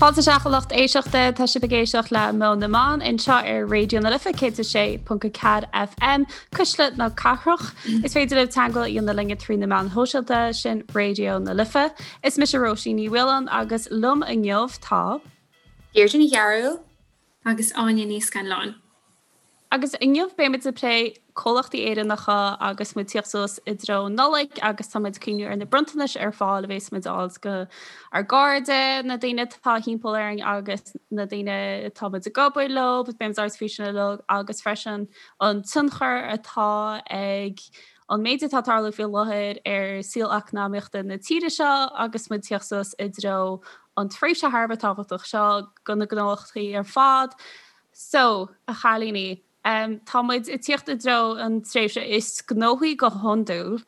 Fáilte isteach a lucht éisteachta, tá sibh ag éisteacht le Meon na mBan anseo ar Raidió na Life 106.4 FM, Cuisle na Cathrach. Is féidir libh teagmháil a dhéanamh linne trí na meáin shóisialta, sin Raidió na Life. Is mise Róisín Ní Mhaoláin agus liom inniu tá. Deirdre Ní Chearúil. Agus Áine Ní Scanláin. Agus inniu beimid ag plé comhlachtaí Éireannacha agus muid ag tíocht suas i dtreo Nollaig agus tá muid ag cuimhniú ar na bronntanais ar fáil a bhéas muid a fháil go ár gcairde, na daoine atá thimpeall orainn agus na daoine atá muid ag obair leo, beimid ag labhairt faoi sin uilig agus freisin an tionchar atá ag an méid atá ag tarlú faoi láthair ar saol eacnamaíochta na tíre seo agus muid ag tíocht suas i dtreo an tréimhse thar a bheith tábhachtach seo go na gnólachtaí ar fad. So, a chailíní, tá muid ag tíocht i dtreo an tréimhse is gnóthaí go hiondúil,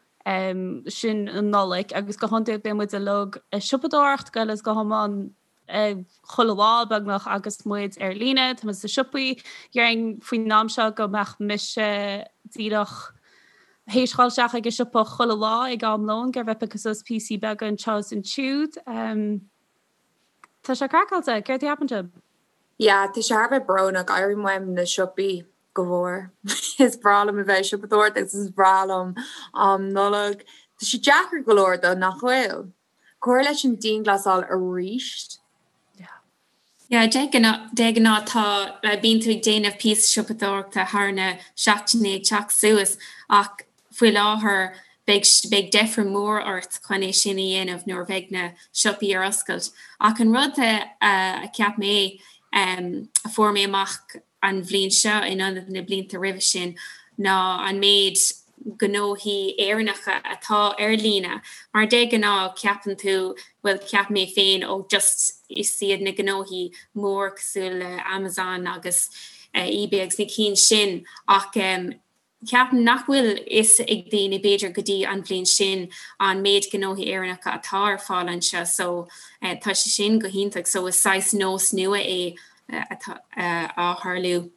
sin an Nollaig, agus go hiondúil bíonn muid uilig ag siopadóireacht go huile is go hiomlán chuile lá beagnach agus muid ar líne, tá muid sna siopaí. Déarfainn faoin am seo go mbeadh mise díreach théis dhul isteach ag an siopa chuile lá ag am lóin ag iarraidh bheith ag piocadh suas píosaí beaga anseo is ansiúd. Tá sé craiceáilte, céard a cheapann sibh? Yeah, tá sé thar a bheith brónach, airím uaim na siopaí go mhór. Is breá liom a bheith ag siopadóireacht agus is breá liom am Nollag. Tá sé deacair go leor though, nach bhfuil? Cur leis an dianghlasáil arís. Yeah. Yeah, de ghnáth, de ghnáth tá, bíonn tú ag déanamh píosa siopadóireachta thar na seachtainí ag teacht suas ach Faoi láthair, beidh beidh deifir mór ort chun é sin a dhéanamh nuair a bheidh na siopaí ar oscailt. Ach an rud a cheap mé, a fuair mé amach an bhliain seo in ionad na blianta roimhe sin, ná an méid gnóthaí Éireannacha atá ar líne. Mar de ghnáth ceapann tú, bhuel cheap mé féin, ó just is iad na gnóthaí mór cosúil le Amazon agus eBay agus na cinn sin ach Ceapaim nach bhfuil fhios ag daoine, b'fhéidir go dtí an bhliain sin, an méid gnóthaí Éireannacha atá ar fáil anseo so tá sé sin go hiontach so is saghas nós nua é atá á tharlú.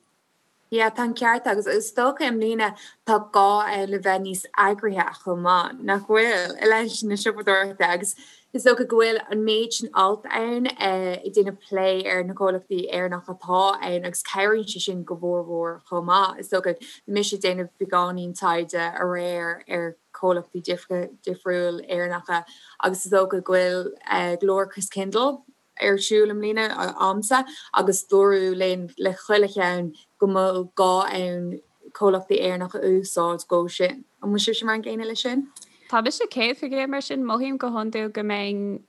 Yeah, tá an ceart agat agus is dócha i mbliana tá gá ann le bheith níos eagraithe chomh maith, nach bhfuil, i leith na siopadóireachta agus Is dócha go bhfuil an méid sin alt ann ag déanamh plé ar na comhlachtaí Éireannacha atá ann agus cabhraíonn sé sin go mhór mhór chomh maith. Is dócha, bhí mise ag déanamh beagáinín taighde aréir ar chomhlachtaí difriúil Éireannacha agus is dócha go bhfuil go leor Christkindl ar siúl i mbliana a'msa agus dúradh linn le chuile cheann go bhfuil gá ann comhlachtaí Éireannacha a úsáid dhó sin. An bhfuil sibhse mar an gcéanna leis sin? Tá mise 100% mar sin, mothaím go hiondúil go mbeinn,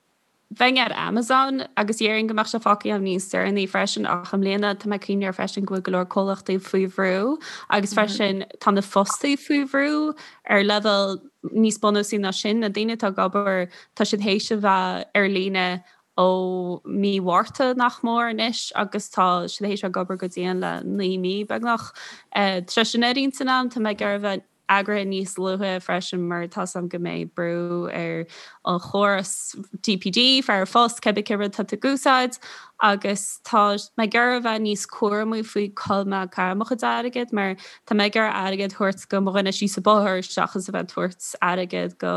bheinn ar Amazon agus dhéarfainn go mbeadh sé fágtha agam níos deireanaí freisin ach i mbliana tá mé ag cuimhneamh air freisin go bhfuil go leor comhlachtaí faoi bhrú agus freisin tá na fostaí faoi bhrú ar leibhéal níos bunúsaí ná sin, na daoine atá ag obair tá siad théis a bheith ar líne ó mí Mhárta nach mór anois agus tá siad théis a bheith ag obair go dian le 9 mí beagnach. Tá sé sin ar intinn agam, tá mé ag iarraidh a bheith eagraithe níos luaithe freisin mar tá 's agam go mbeidh brú ar an chóras DPD, fear an phost, cibé cén rud atá tú ag úsáid agus tá mé ag iarraidh a bheith níos cúramaí faoi cá bhfuil mé ag caitheamh mo chuid airgid mar tá mé ag iarraidh airgead a thabhairt go mo dhuine síos an bóthar seachas a bheith ag tabhairt airgead go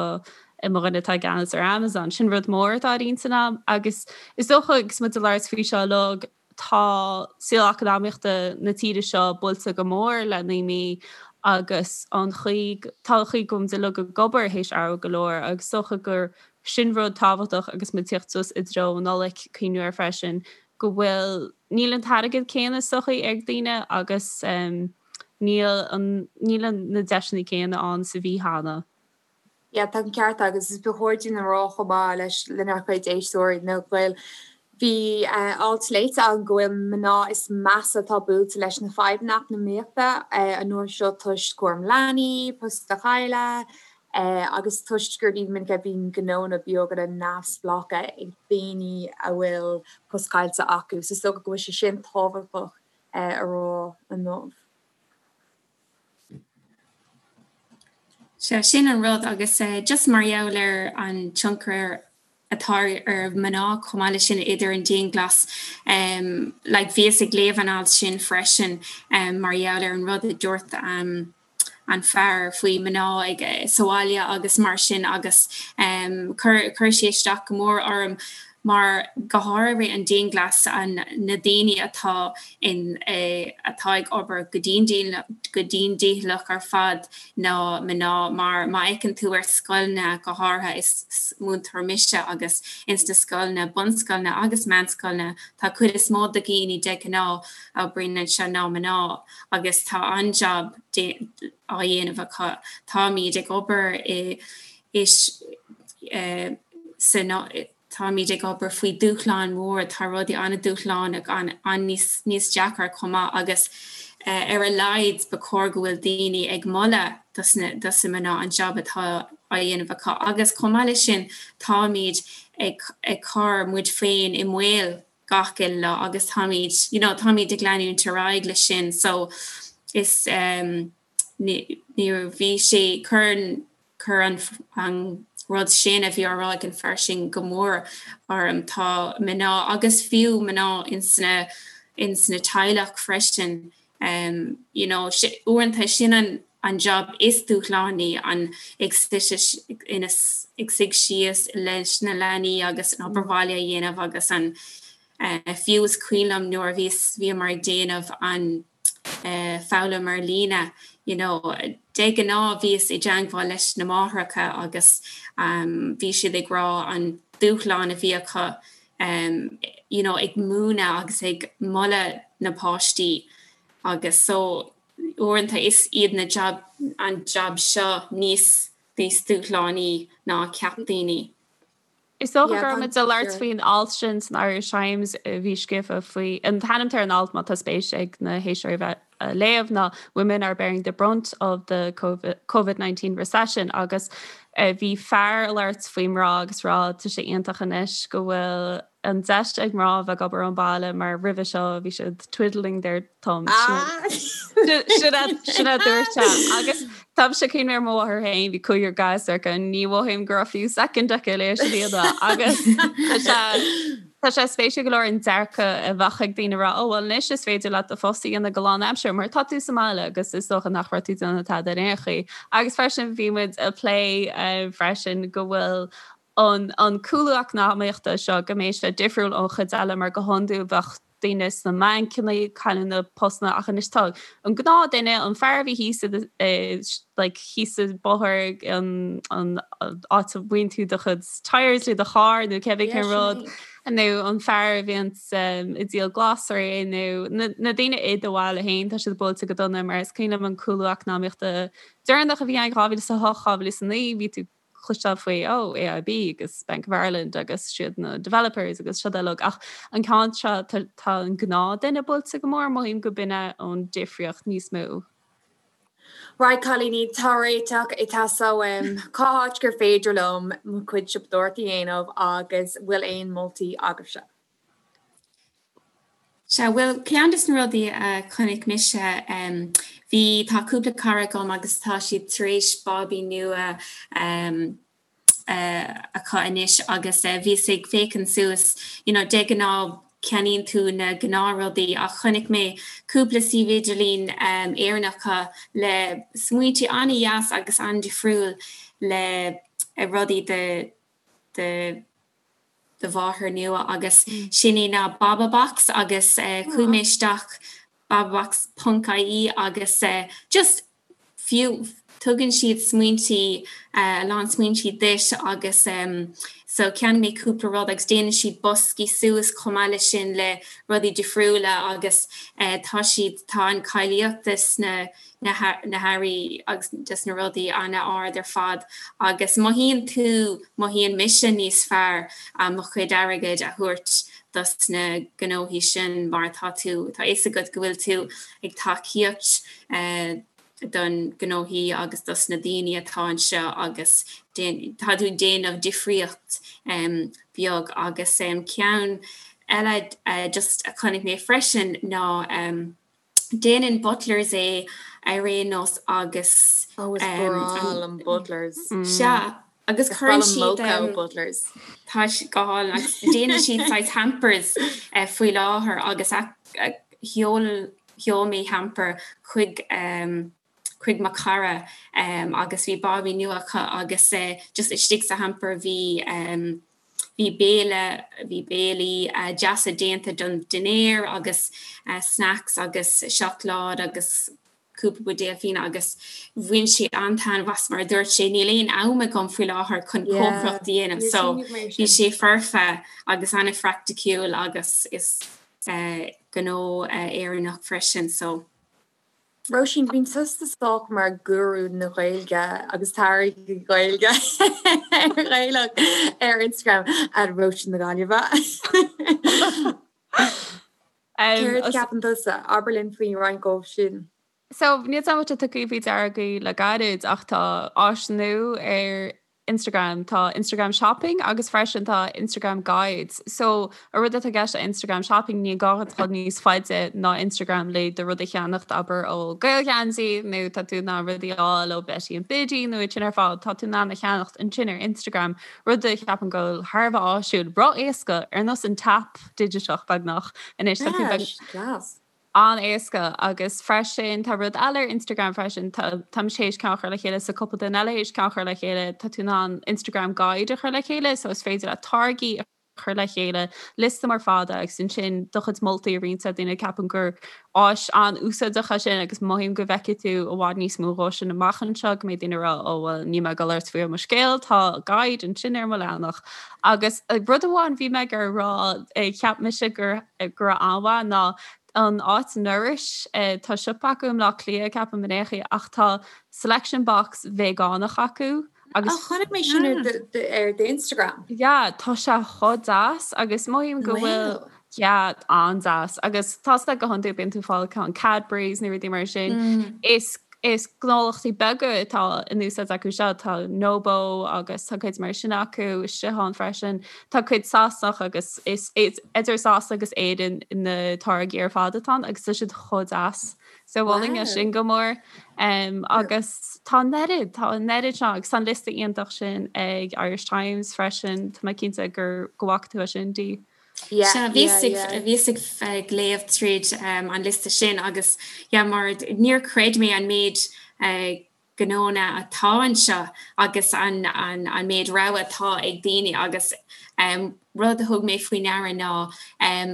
mo dhuine atá i gceannas ar Amazon. Sin rud mór atá ar intinn agam agus is dócha agus muid ag labhairt faoi seo uilig, tá saol eacnamaíochta na tíre seo buailte go mór le 9 mí agus an chaoi, tá an chaoi go bhfuil muid uilig ag obair théis athrú go leor agus is dócha gur sin rud tábhachtach agus muid ag tíocht suas i dtreo an Nollaig, cuimhniú air freisin go bhfuil, níl an t-airgead céanna is dócha ag daoine agus níl an, níl na deiseanna céanna ann is a bhí cheana. Yeah, tá an ceart agat agus ba chóir dúinn a rá chomh maith leis lenár gcuid éisteoirí nó go bhfuil bhí alt léite agam go bhfuil mná is measa atá buailte leis na fadhbanna eacnamaíochta an uair seo toisc cúram leanaí, post a chailleadh agus toisc gur ní minic a bhíonn gnónna beaga neamhspleácha ag daoine a bhfuil post caillte acu. So is dócha go bhfuil sé sin tábhachtach a rá inniu. Sea, sin an rud agus just mar gheall ar an tionchar atá ar mhná chomh maith leis sin idir an dianghlas, like bhíos ag léamh an alt sin freisin mar gheall ar an rud a dúirt an fear faoi mná ag sa bhaile agus mar sin agus chuir chuir sé isteach go mór orm. Mar go háirithe an dianghlas an na daoine atá in atá ag obair go dian go dian dícheallach ar fad ná mná mar má fheiceann tú ar scoileanna go háirithe is múinteoir mise agus ins na scoileanna bunscoileanna agus meánscoileanna tá cuid is mó de dhaoine de ghnáth a oibríonn anseo ná mná agus tá an-jab á dhéanamh acu. Táimid ag obair i is sa táimid ag obair faoi dúshlán mór, tá rudaí an-dúshlánach, an-níos níos deacair chomh maith agus ar a laghad ba chóir go bhfuil daoine ag moladh dos na dos na mná an jab atá á dhéanamh acu agus chomh maith leis sin táimid ag ag cur muid féin i mbaol gach uile lá agus táimid you know táimid ag leanúint ar aghaidh leis sin so is ní bhí sé cuireann Chuir an rud sin a bhí á rá ag an fear sin go mór orm. Tá mná, agus fiú mná ins na, ins na teaghlach freisin, you know, uaireanta sin an, an job is dúshlánaí, an ag ag suigh síos leis na leanaí agus an obair bhaile a dhéanamh agus an, fiú is cuimhin liom nuair a bhíos, bhíomar ag déanamh an, foghlaim ar líne you know de ghnáth bhíos i dteangmháil leis na máithreacha agus bhí siad ag rá an dúshlán a bhí acu you know ag múineadh agus ag moladh na páistí agus so uaireanta is iad na job an job seo níos níos dúshlánaí ná a cheap daoine. Is dócha go raibh muid ag labhairt faoin alt sin san Irish Times a bhí scríofa faoi, an t-ainm ar an alt má tá spéis ag na héisteoirí bheith a léamh ná Women are bearing the brunt of the Covid-19 recession agus bhí fear ag labhairt faoi mná agus rá tá sé iontach anois go bhfuil an deis ag mná a bheith ag obair ón baile mar roimhe seo bhí siad twiddling their thumbs. Sin a dúirt sé. Agus táimse ag cuimhneamh ar mo mháthair féin, bhí cúigear gasúr aici, ní mhothaím go raibh fiú soicind aici le sin a dhéanamh. Agus tá sé tá sé spéisiúil go leor an dearcadh a bheadh ag daoine rá, ó bhuel anois is féidir leat do phost a dhéanamh go lánaimseartha mar tá tú sa mbaile agus is dócha nach raibh tú ag déanamh tada ar aon chaoi. Agus freisin bhí muid ag plé freisin go bhfuil an an cúlú eacnamaíochta seo go mbeidh sé difriúil ón chuid eile mar go hiondúil bheadh daoine sna mbancanna ag cailleadh na postanna ach anois tá an gnáth duine, an fear a bhí thíos i like thíos sa bóthar an an áit a bhfaigheann tú do chuid tires le do charr nó cébí cén rud nó an fear a bhíonn ag díol glasraí nó na na daoine i do bhaile féin tá siad buailte go dona mar is cuimhin liom an cúlú eacnamaíochta deireanach a bhí ann 2008 2009 bhí tú cloisteáil faoi, oh, AIB agus Bank of Ireland agus siad na developers agus siad uilig ach an ceann seo tá tá an gnáthduine buailte go mór, mothaím go b'in é an difríocht níos mó. Right cailíní, tá réiteach ag teastáil uaim. Cá háit gur féidir liom mo chuid siopadóireachta a dhéanamh agus bhfuil aon moltaí agaibhse? Sea, bhuel, ceann des na rudaí a chonaic mise, bhí, tá cúpla cara agam agus tá siad tar éis bábaí nua acu anois agus bhíos ag féachaint suas, you know, de ghnáth ceannaíonn tú na gnáthrudaí ach chonaic mé cúpla suíomh idirlín Éireannacha le smaointe an-dheas agus an-difriúil le rudaí do, do, do mháthair nua agus sin é ná Bababox agus chuaigh mé isteach bababox ponc ie agus just fiú tugann siad smaointí a lán smaointí duit agus so cheannaigh mé cúpla rud agus déanann siad boscaí suas chomh maith leis sin le rudaí difriúla agus tá siad tá an cáilíocht de sna na hearraí agus des na rudaí an-ard ar fad agus mothaíonn tú, mothaíonn mise níos fearr mo chuid airgid a thabhairt dos na gnóthaí sin mar tá tú, tá fhios agat go bhfuil tú ag tacaíocht don gnóthaí agus dos na daoine atá anseo agus tá tú ag déanamh difríocht beag agus ceann eile just a chonaic mé freisin ná Déanann Butlers é ar aon nós agus. Oh is breá liom Butlers. Sea, agus cuireann siad. Is breá liom mocha ó Butlers. Tá sé go hálainn agus déanann siad saghas hampers faoi láthair agus sheol sheol mé hamper chuig chuig mo chara agus bhí bábaí nua acu agus just istigh sa hamper bhí. Bhí béile, bhí béilí deasa déanta don dinnéar agus snacks agus seacláid agus cúpla buidéal fíona agus bhain sé an-taitneamh as mar a dúirt sé níl aon am agam faoi láthair chun cócaireacht a dhéanamh so bhí sé foirfe agus an-phraiticiúil agus is gnó Éireannach freisin so. Róisín, bíonn tusa sách mar gúrú na Gaeilge agus táirgí Gaeilge Ghaelach ar Instagram at Róisín na Gaillimhe. Céard a cheapann tusa? Abair linn faoi roinnt dhóibh sin. So, níl 's agam an bhfuil sé tugtha faoi deara agaibh le gairid ach tá áis nua ar Instagram, tá Instagram Shopping agus freisin tá Instagram Guides. So, an rud atá i gceist le Instagram Shopping, ní gá duit dul níos faide ná Instagram le do rud a cheannacht, abair ó Gaelgheansaí nó tá tú in ann rudaí a fháil ó Betty and Biddy nó iad sin ar fad, tá tú in ann a cheannacht ansin ar Instagram, rud a cheapaim go bhfuil thar a bheith áisiúil, ró-éasca, ar nós an tap digiteach beagnach anois tá tú beag. Class. an-éasca agus freisin tá rud eile ar Instagram freisin, tá tá mise théis ceann a chur le chéile so cúpla duine eile théis ceann a chur le chéile, tá tú in ann Instagram guide a chur le chéile so is féidir leat táirgí a chur le chéile, liosta mór fada agus ansin do chuid moltaí a roinnt le daoine, ceapaim gur áis an-úsáideach é sin agus mothaím go bhfeicfidh tú i bhfad níos mó dhó sin amach anseo go mbeidh daoine ag rá ó bhuel níl mé ag dul ort faoi mo scéal, tá guide ansin ar mo leathanach. Agus rud amháin bhí mé ag iarraidh a rá, cheap mise gur go raibh an-mhaith ná an áit Nourish, tá siopa acu i mBleá Cliath ceapaim in aon chaoi ach tá selection box veigeánach acu agus. Ó chonaic mé sin ar d'Instagram. Yeah, tá sé chomh deas agus mothaím go bhfuil, yeah, an-deas agus tá sé go hiondúil bíonn tú ag fáil ceann Cadbury's nó rudaí mar sin. Is Is gnólachtaí beaga atá in úsáid acu seo, tá Nobo agus tá cuid mar sin acu istigh ann freisin. Tá cuid Sasanach agus is idir Sasana agus Éirinn na táirgí ar fad atá ann agus tá siad chomh deas. So mholfainn é sin go mór. Agus tá an oiread, tá an oiread seo agus tá an liosta iontach sin ag Irish Times freisin, tá mé cinnte gur go bhfaca tú é sin, Dee. Sea, bhíos ag léamh tríd an liosta sin agus yeah mar níor chreid mé an méid gnónna atá anseo agus an méid rogha atá ag daoine agus rud a thug mé faoi ndeara ná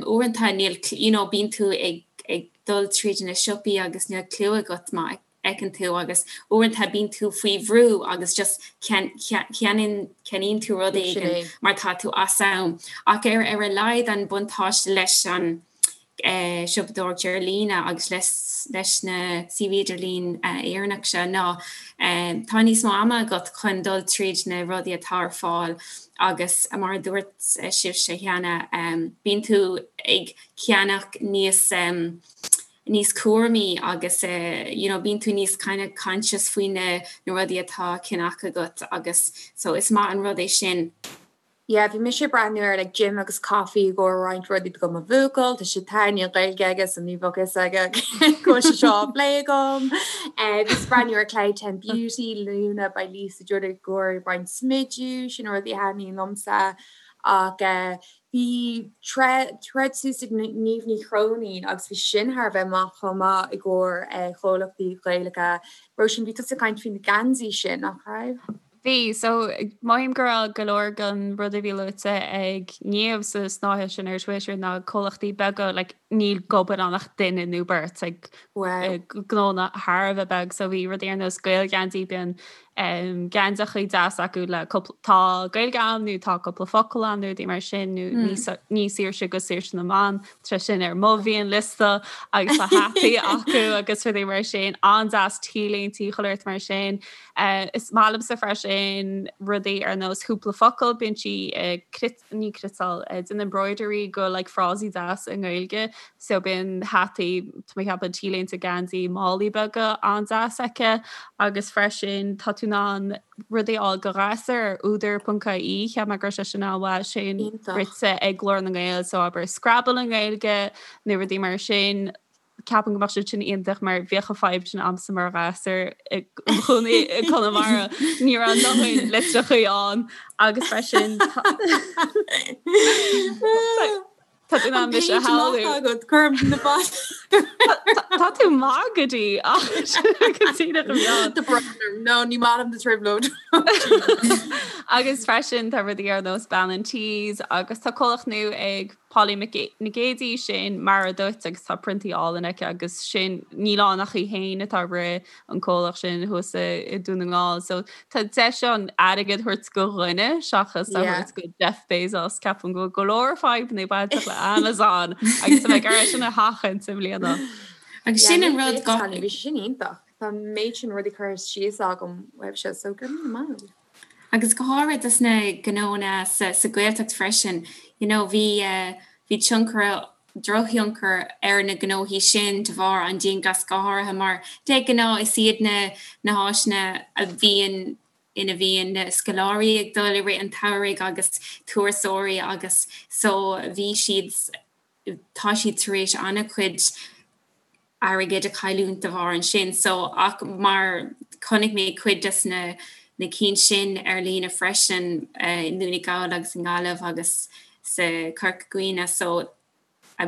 uaireanta níl you know bíonn tú ag dul tríd na siopaí agus níl clue agat má fheiceann tú agus uaireanta bíonn tú faoi bhrú agus just ceannaíonn tú rud éigin mar tá tú as am. Ach ar ar a laghad an buntáiste leis an siopadóireacht ar líne agus leis leis na suímh idirlín Éireannach seo ná tá níos mó ama agat chun dul tríd na rudaí atá ar fáil agus mar a dúirt sibhse cheana bíonn tú ag ceannach níos níos cúramaí agus you know bíonn tú níos kind of conscious faoi na na rudaí atá á gceannach agat agus so is maith an rud é sin. Yeah, bhí mise ag breathnú ar like Jim agus Coffee i gcomhair roinnt rudaí do mo bhuachaill, tá sé tá níl Gaeilge aige so ní bheadh fhios aige go bhfuil sé seo á phlé agam. Bhíos ag breathnú ar Cloud 10 Beauty, Luna by Lisa Judd i gcomhair roinnt smidiú, sin rudaí a thaitníonn liomsa ach Bhí thread suas ag Niamh Ní Chróinín agus bhí sin thar a bheith maith chomh maith i gcomhair chomhlachtaí Gaelacha. Róisín, bhí tusa ag caint faoi na geansaí sin, nach raibh? Bhí. So, mothaím go raibh go leor den rud a bhí luaite ag Niamh sa snáithe sin ar Twitter ná comhlachtaí beaga, like, níl ag obair ann ach duine nó beirt, like, gnónna thar a bheith beag. So bhí rudaí ar nós Gaelgheansaí, bíonn geansaíochaí deas acu le cúpla, tá Gaeilge ann nó tá cúpla focal ann nó rudaí mar sin nó ní saoirse go saoirse na mban, tá sin ar mo mhianliosta agus tá hataí acu agus rudaí mar sin, an-deas t-léintí chuile shórt mar sin. Is maith liomsa freisin rudaí ar nós chúpla focal, bíonn sí ag ní cniotáil, déanamh embroidery go like frásaí deas i nGaeilge so bíonn hataí, tá mé ag ceapadh t-léinte geansaí málaí beaga an-deas aici agus freisin tá tú in ann rudaí a fháil do ghasúir ar údar.ie, cheap mé go raibh sé sin an-mhaith, sin rite ag Glór na nGael so abair Scrabble i nGaeilge nó rudaí mar sin. Ceapaim go mbeadh siad sin iontach mar bhíodh an fadhb sin a'msa mar ghasúr i mo chónaí i gConamara. Ní raibh a ndóthain litreachaí ann agus freisin tá tú in ann mise a shamhlú. Agat cuirim na bas. Tá tú maith go dtí ach go díreach a bheag. Tá brón orm. No, ní maith liom na trioblóidí. Agus freisin tá rudaí ar nós Bean an Tí agus tá comhlacht nua ag Polly Nic Géadaigh sin Mara Duit agus tá priontaí álainn aici agus sin níl ann ach í féin atá ag rith an comhlacht sin thuas i Dún na nGall. So tá deis ann airgead a thabhairt go dhuine seachas a thabhairt go Jeff Bezos. Ceapaim go bhfuil go leor fadhbanna bainteach le Amazon agus tá mé ag iarraidh sin a sheachaint i mbliana. Agus sin an rud go. Bhí sé sin iontach. Tá an méid sin rudaí curtha síos agam uaibhse so go raibh míle maith agat. Agus go háirithe dos na gnónna sa Ghaeltacht freisin, you know bhí bhí tionchar, drochthionchar ar na gnóthaí sin de bharr an dianghlas go háirithe mar de ghnáth is iad na na háiteanna a bhíonn ina bhíonn na scoláirí ag dul i rith an tsamhraidh agus turasóirí agus so bhí siad tá siad tar éis an-chuid airgid a chailliúint de bharr ansin so ach mar chonaic mé cuid des na na cinn sin ar líne freisin i nDún na nGall agus i nGaillimh agus sa Chorca Dhuibhne so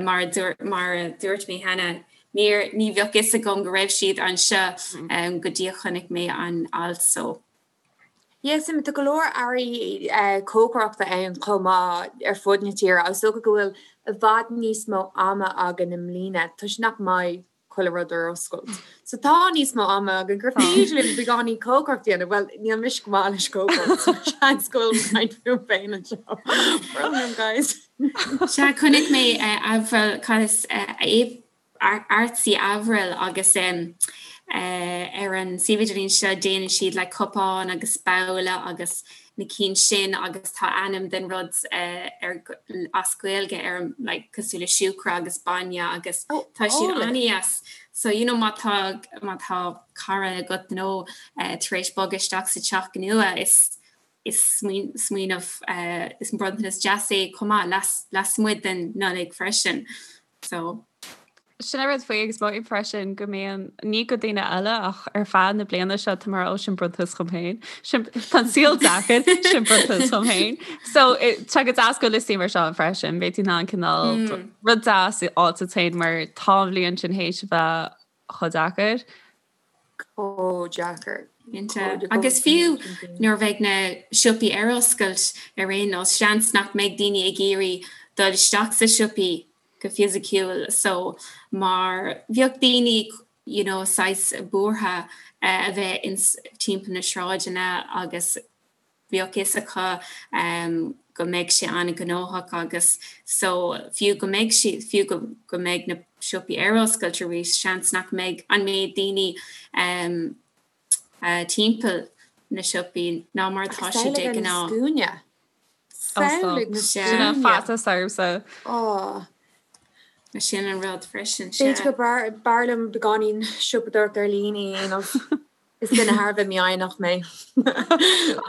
mar a dúirt mar a dúirt mé cheana níor ní bheadh fhios agam go raibh siad anseo go dtí a chonaic mé an alt so. Yes, tá go leor earraí cócaireachta ann chomh maith ar fud na tíre agus is dócha go bhfuil i bhfad níos mó ama againn i mbliana toisc nach mbeidh chuile rud ar oscailt. So tá níos mó ama againn gur féidir linn beagáinín cócaireacht a dhéanamh. Bhuel, níl mise go maith leis cócaireacht, so seans go bhfuil mé ag caint fúm féin anseo. Brón orm, guys. Sea, chonaic mé Avril, cad is Artsy Avril agus ar an suíomh idirlín seo déanann siad like cupáin agus babhla agus na cinn sin agus tá ainm den rud ar as Gaeilge ar like cosúil le siúcra agus bainne agus tá siad an-deas. So you know má tá má tá cara agat nó tar éis bogadh isteach sa teach nua is is smaoineamh is bronntanas deas é chomh maith lasmuigh den Nollaig freisin. So. Sin an rud faoi agus mothaím freisin go mbíonn, ní go daoine eile ach ar feadh na bliana seo tá mé ó sin bronntanas dhom féin. Sin tá an saol deacair, sin bronntanas dhom féin. So tá go deas go liostaí mar seo freisin, beidh tú in ann cineál rud deas a fháil duit féin mar tá an bhliain sin théis a bheith chomh deacair. Chomh deacair. Cinnte. Agus fiú nuair a bheidh na siopaí ar oscailt ar aon nós, seans nach mbeidh daoine ag iarraidh dul isteach sa siopaí go fisiciúil so mar bheadh daoine you know saghas buartha a bheith ins timpeall na sráideanna agus bheadh fhios acu go mbeidh sé an-ghnóthach agus so fiú go mbeidh siad, fiú go go mbeidh na siopaí ar oscailt arís, seans nach mbeidh an méid daoine timpeall na siopaí ná mar atá sé de ghnáth. Scuaine. Samhlaigh na scuaine. Faitíos ormsa. Ó. Sin an rud freisin, sea. B'fhéidir go b'fhearr liom beagáinín siopadóireacht ar líne a dhéanamh. Is duine thar a bheith mífhoighneach mé.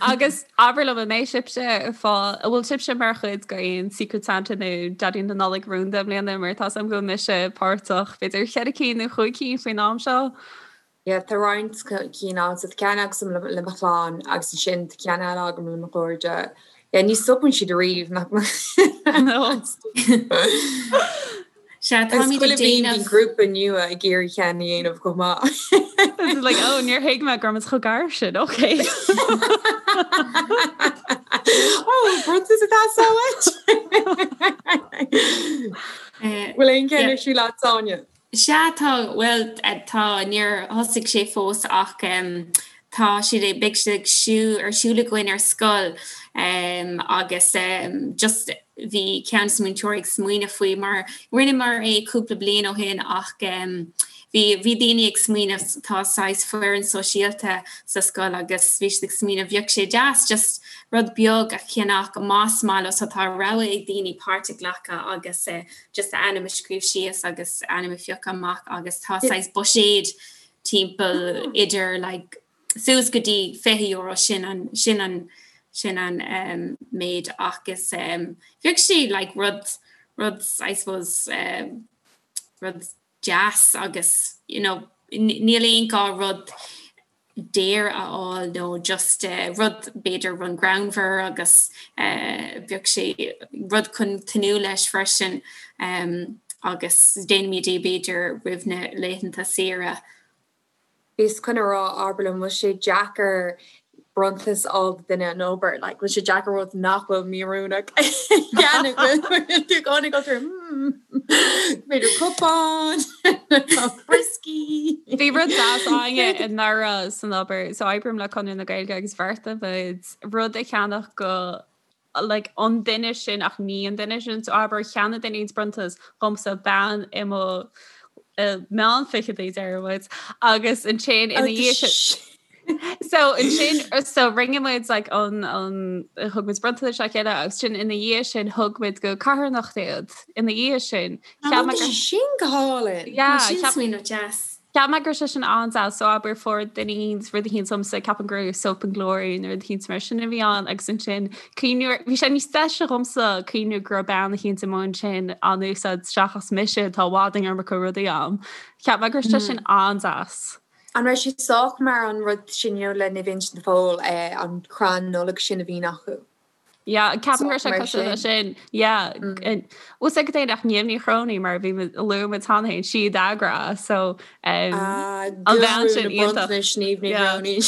Agus abair liom, an mbeidh sibhse ag fáil, an bhfuil sibhse mar chuid de aon Secret Santa nó Daidí na Nollag rúnda i mbliana mar tá 's agam go bhfuil mise páirteach, b'fhéidir cheithre cinn nó chúig cinn faoin am seo? Yeah, tá roinnt cinn ann. So tá ceann agam le mo chlann agus ansin tá ceann eile agam le mo chairde. Yeah, ní stopann siad ariamh, nach No. Sea, táimid ag déanamh. Bíonn grúpa nua ag iarraidh ceann a dhéanamh chomh maith. It's like, oh, níor thuig mé go raibh muid chomh gar sin, okay. Oh, bronntanas atá sa uait. Bhfuil aon cheann ar siúl agat, Áine? Sea, tá, bhuel, tá, níor thosaigh sé fós ach tá siad ag, beidh siad ag siú, ar siúl againn ar scoil agus just, bhí ceann de na múinteoirí ag smaoineamh faoi mar rinneamar é cúpla bliain ó shin ach bhí bhí daoine ag smaoineamh tá saghas foireann sóisialta sa scoil agus bhí siad ag smaoineamh bheadh sé deas just rud beag a cheannach más maith leo so tá rogha ag daoine páirt a ghlacadh agus just a ainm a scríobh síos agus ainm a phiocadh amach agus tá saghas buiséad timpeall idir like suas go dtí €20 sin an sin an sin an um, méid agus um, bheadh sé like rud rud I suppose um, rud deas agus you know, níl aon gá rud daor a fháil nó just uh, rud b'fhéidir rud greannmhar agus uh, bheadh sé rud chun tnúth leis freisin. Um, Agus déanaimid é b'fhéidir roimh na laethanta saoire. Bhíos chun a rá, abair liom, bhfuil sé deacair bronntanas a fháil do duine an obair? Like, bhfuil sé deacair rud nach bhfuil míoiriúnach a cheannach? Bhfuil tú i gcónaí ag dul through, hmm, b'fhéidir cupán, brioscaí. Bhí rud deas againne anuraidh san obair, so oibrím le Conradh na Gaeilge agus bheartaigh muid rud a cheannach go like an duine sin ach ní an duine sin so abair cheannaigh duine éicint bronntanas dhomsa bean i mo meán fichidí deir muid agus ansin ina dhiaidh sin so ansin so rinne muid like an an thug muid bronntanais dá chéile agus sin ina dhiaidh sin thug muid go carthanacht iad ina dhiaidh sin Cheap mé gur sin go hálainn. Yeah, Sin smaoineamh deas. Cheap mé go raibh sé sin an-deas, so abair fuair duine éicint rud éicint domsa, ceapaim go raibh Soap and Glory nó rud éicint mar sin a bhí ann agus ansin cuimhniú ar, bhí sé níos deise dhomsa cuimhniú go raibh bean éicint amuigh ansin á n-úsáid seachas mise atá i bhfad an iomarca rudaí a'm. Cheap mé go raibh sé sin an-deas. An raibh sé sách mar an rud sin you know le Naomh Uinseann de Pól, an crann Nollag sin a bhíonn acu? Yeah, ceapaim go raibh sé cosúil leis sin. Yeah. Bhfuil sé go dtéann ach Niamh Ní Chróinín mar bhí luaigh muid cheana féin sí a d'eagraigh so um, an bhean sin iontach. Niamh Ní Chróinín.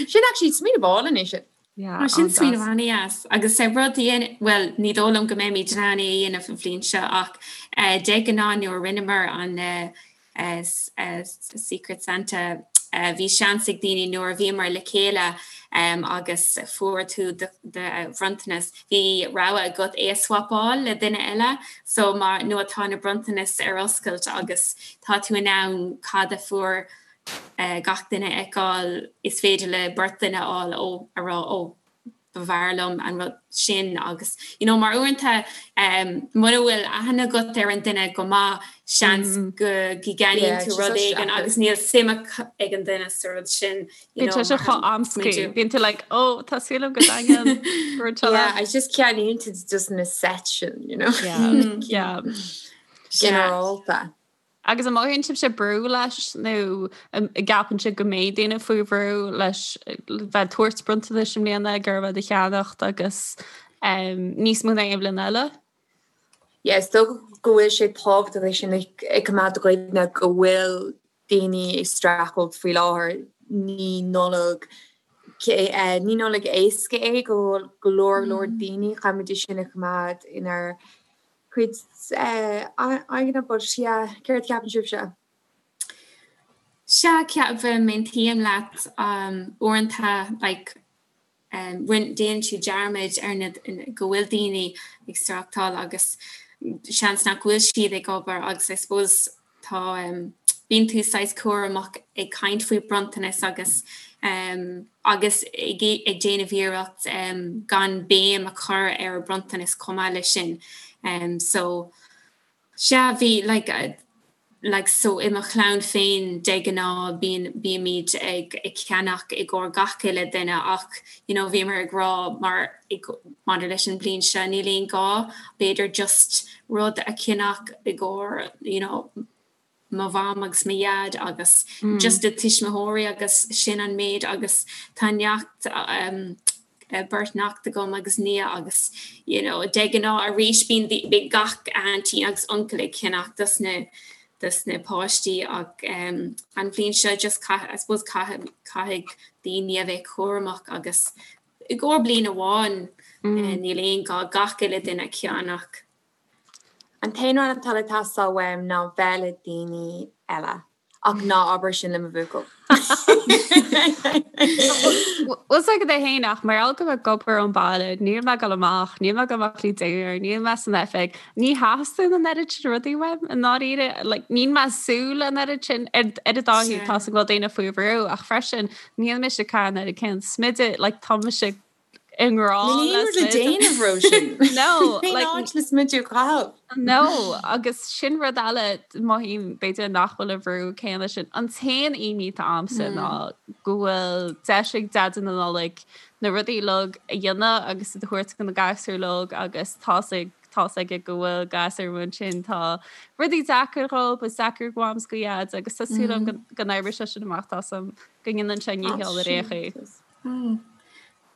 Sin actually smaoineamh álainn é sin. Yeah, sin smaoineamh an-deas agus sé rud well ní dóigh liom go mbeimid in ann é a dhéanamh an bhliain seo ach eh, de ghnáth nuair a rinneamar an eh, Secret Santa. Bhí seans ag daoine nuair a bhíomar le chéile agus fuair tú do bhronntanas, bhí rogha agat é a swapáil le duine eile. So má nuair atá na bronntanais ar oscailt agus tá tú in ann cad a fuair gach duine a fheiceáil, is féidir le beirt duine a fháil ó a rá ó b'fhearr liom an rud sin agus you know mar uaireanta um, mura bhfuil aithne agat ar an duine go maith seans mm. go gceannaíonn tú rud éigin agus níl suim ag an duine sa rud sin you know, sé chomh amscaí bíonn tú like oh tá súil agam go dtaitneoidh Yeah, I just ceannaíonn tú just na set sin you know yeah, mm. yeah. Ginearálta. Agus an mothaíonn sibhse brú leis nó an gceapann sibh go mbeidh daoine faoi bhrú leis bheith ag tabhairt bronntanais i mbliana ag iarraidh a cheannacht agus níos mó ná aon bhliain eile? Yeah, is dócha go bhfuil sé tábhachtach é sin a choimeád i gcuimhne go bhfuil daoine ag streachailt faoi láthair. Ní Nollaig ní Nollaig éasca é go go leor leor daoine, caithfimid é sin a choimeád inár cuid aigne but yeah, céard a cheapann sibhse? Sea, ceapaim, aontaím leat, uaireanta like rinne, déanann tú dearmad ar na, go bhfuil daoine ag streachtáil agus seans nach bhfuil siad ag obair agus I suppose Tá, bíonn tú saghas cúramach ag caint faoi bronntanas agus agus ag déanamh iarracht gan béim a chur ar bronntanas chomh maith leis sin. So, sea, bhí like like so i mo chlann féin de ghnáth bíonn bímid ag ag ceannach i gcomhair gach uile duine ach you know bhíomar ag rá mar maidir leis an bhliain seo níl aon gá b'fhéidir just rud a cheannach i gcomhair you know mo mham agus mo dhaid agus mm. just do tuismitheoirí agus sin an méid agus tá neacht um, beirt neacht agam agus nia agus you know, de ghnáth arís bíonn bíonn gach auntie agus uncail ag ceannach dos na dos na páistí ach um, an bhliain seo just caith, I suppose caithfidh caithfidh daoine a bheith cúramach agus I gcomhair bliain amháin níl aon gá gach uile duine a cheannach. An t-aon rud atá le teastáil uaim ná bheith le daoine eile. Ach ná abair sin le mo bhuachaill. Bhfuil 's agat é fhéin ach mar gheall go bhfuil ag obair ón baile, níl mé ag dul amach, níl mé ag dul amach le dinnéar, níl mé san oifig, ní theastaíonn an oiread sin rudaí uaim i ndáiríre. Like, níl mé ag súil an oiread sin ar ar an dá thaobh, tá 's agam go bhfuil daoine faoi bhrú ach freisin Níl mise ag caitheamh an oiread céanna smididh, like tá mise i ngrá le smideadh. le déanamh Róisín. No, like. Cén áit le smideadh a chaitheamh? No, agus sin rud eile mothaím b'fhéidir nach bhfuil an bhrú céanna sin. An t-aon imní atá a'msa ná go bhfuil deis ag Deaide na Nollag na rudaí uilig a dhéanamh agus iad a thabhairt do na gasúir uilig agus tá's ag tá's aige go bhfuil gasúir amuigh ansin tá rudaí deacair dhóibh, is deacair go mham 's go dhaid agus tá súil agam go n-oibreoidh sé sin amach tá 's agam go ndéanann sé a ndícheall ar aon chaoi.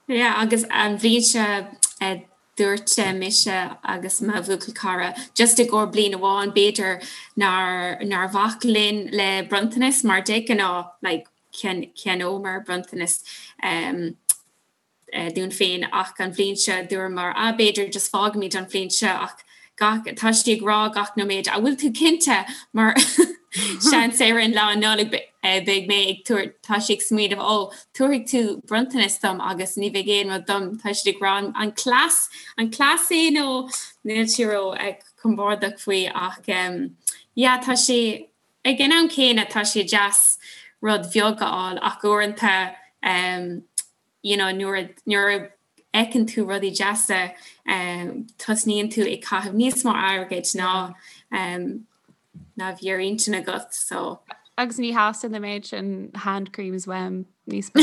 Yeah agus an bhliain seo. Dúirt mise agus mo bhuachaill cara just i gcomhair bliain amháin b'fhéidir nár nár bhac linn le bronntanas mar de ghnáth like cheannómar bronntanas um, dúinn féin ach an bhliain seo dúramar ah b'fhéidir just fágfaimid an bhliain seo ach gach tá sí ag rá gach nóiméad an bhfuil tú cinnte mar seans ar an lá Nollag beidh mé ag tabhairt tá sí ag smaoineamh ó tabharfaidh tú bronntanas dom agus ní bheidh aon rud dom tá siad ag rá an cleas an cleas é nó níl sí ró compordach faoi ach yeah tá sé ag an am céanna tá sé deas rud bheag a fháil ach uaireanta you know nuair nuair a fheiceann tú rudaí deasa tosnaíonn tú ag caitheamh níos mó airgid ná ná bhí ar intinn agat so. Agus ní theastaíonn an méid sin hand creams uaim níos mó.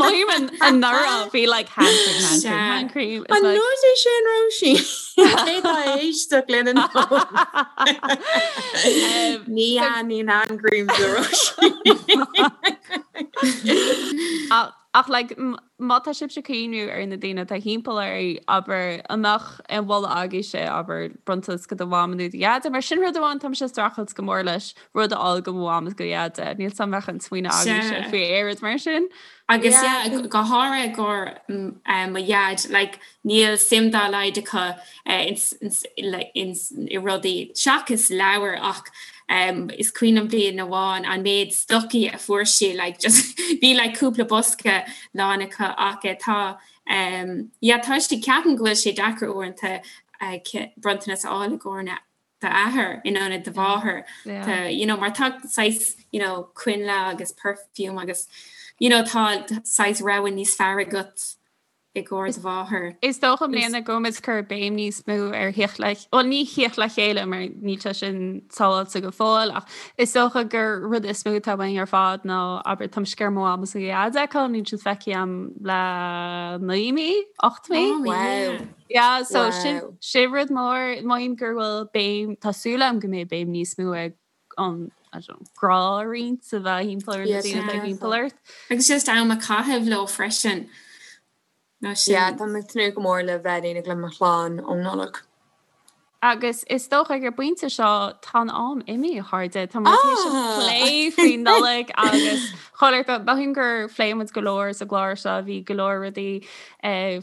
Mothaím anuraidh bhí like hand cream, hand cream, hand cream. An nós é sin Róisín? Cé tá ag éisteacht linn an Ní thaitníonn hand creams le Róisín. Ach like má tá sibhse ag cuimhniú ar na daoine atá thimpeall oraibh, abair, an mbeadh aon mholadh agaibhse, abair, bronntanas go do mham nó do dhaid, mar sin rud amháin táimse ag streachailt go mór leis, rud a fháil go mo mham is go dhaid. Níl 's a'm an mbeadh aon smaoineamh agaibhse faoi aon rud mar sin. Agus yeah, go háirithe i gcomhair mo dhaid, like níl suim dá laghad acu i rudaí seachas leabhair ach is cuimhin liom bliain amháin an méid stocaí a fuair sí like just bhí like cúpla bosca lán acu ach tá yeah tá sé ceapaim go bhfuil sé deacair uaireanta bronntanas a fháil i gcomhair d'athair in ionad do mháthair tá you know mar tá saghas you know coinnle agus perfume agus you know tá saghas rogha níos fearr agat i gcomhair do mháthar. Is dócha i mbliana go bhfuil muid ag cur béim níos mó ar theacht le, bhuel ní theacht le chéile mar níl sé sin sábháilte go fóill ach is dócha gur rud is mó atá uainn ar fad ná abair tá mise ag iarraidh mo mham is mo dhaid a fheiceáil níl siad feicthe agam le 9 mí, 8 mí. Oh, wow. Yeah, so sin sin rud mór, mothaím gur bhfuil béim, tá súil agam go mbeidh béim níos mó ag an I don't know, grá a roinnt a bheith thimpeall ar na daoine atá thimpeall ort. Agus just am a chaitheamh leo freisin. Nó sin. Yeah, tá mé ag tnúth go mór le bheith in éineacht le mo chlann um Nollaig. Agus is dócha ag an bpointe seo tá an am imithe, a chairde. Tá muid tar éis plé faoin Nollaig agus chuile shórt, mothaím gur phléigh muid go leor sa gclár seo, bhí go leor rudaí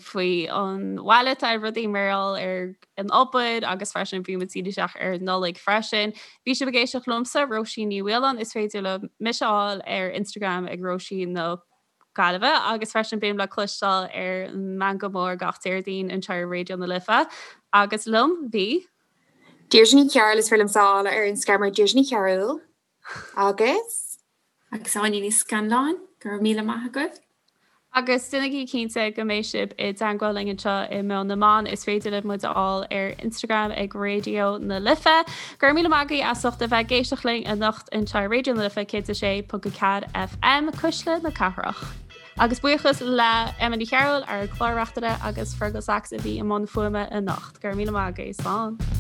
faoi an bhaile, tá rudaí mar gheall ar an obair agus freisin bhí muid ag díriú isteach ar an Nollaig freisin. Bhí sibh ag éisteacht liomsa, Róisín Ní Mhaoláin, is féidir libh mise a fháil ar Instagram ag Róisín na Gaillimhe agus freisin bím le cloisteáil ar an Meangadh Mór gach Déardaoin anseo ar Raidió na Life. Agus liom bhí. Deirdre Ní Chearúil, is féidir liomsa a fháil ar Instagram ar Deirdre Ní Chearúil agus. Agus Áine Ní Scanláin, go raibh míle maith agaibh. Agus déanaigí cinnte go mbeidh sibh i dteangmháil linn anseo i Meon na mBan. Is féidir libh muid a fháil ar Instagram ag Raidió na Life. Go raibh míle maith agaibh as ucht a bheith ag éisteacht linn anocht anseo ar Raidió na Life 106.4 FM, Cuisle na Cathrach. Agus buíochas le Emma Ní Chearúil, ár gclár-reachtaire, agus Fergal Sachs a bhí i mbun fuaime anocht. Go raibh míle maith agaibh. Slán.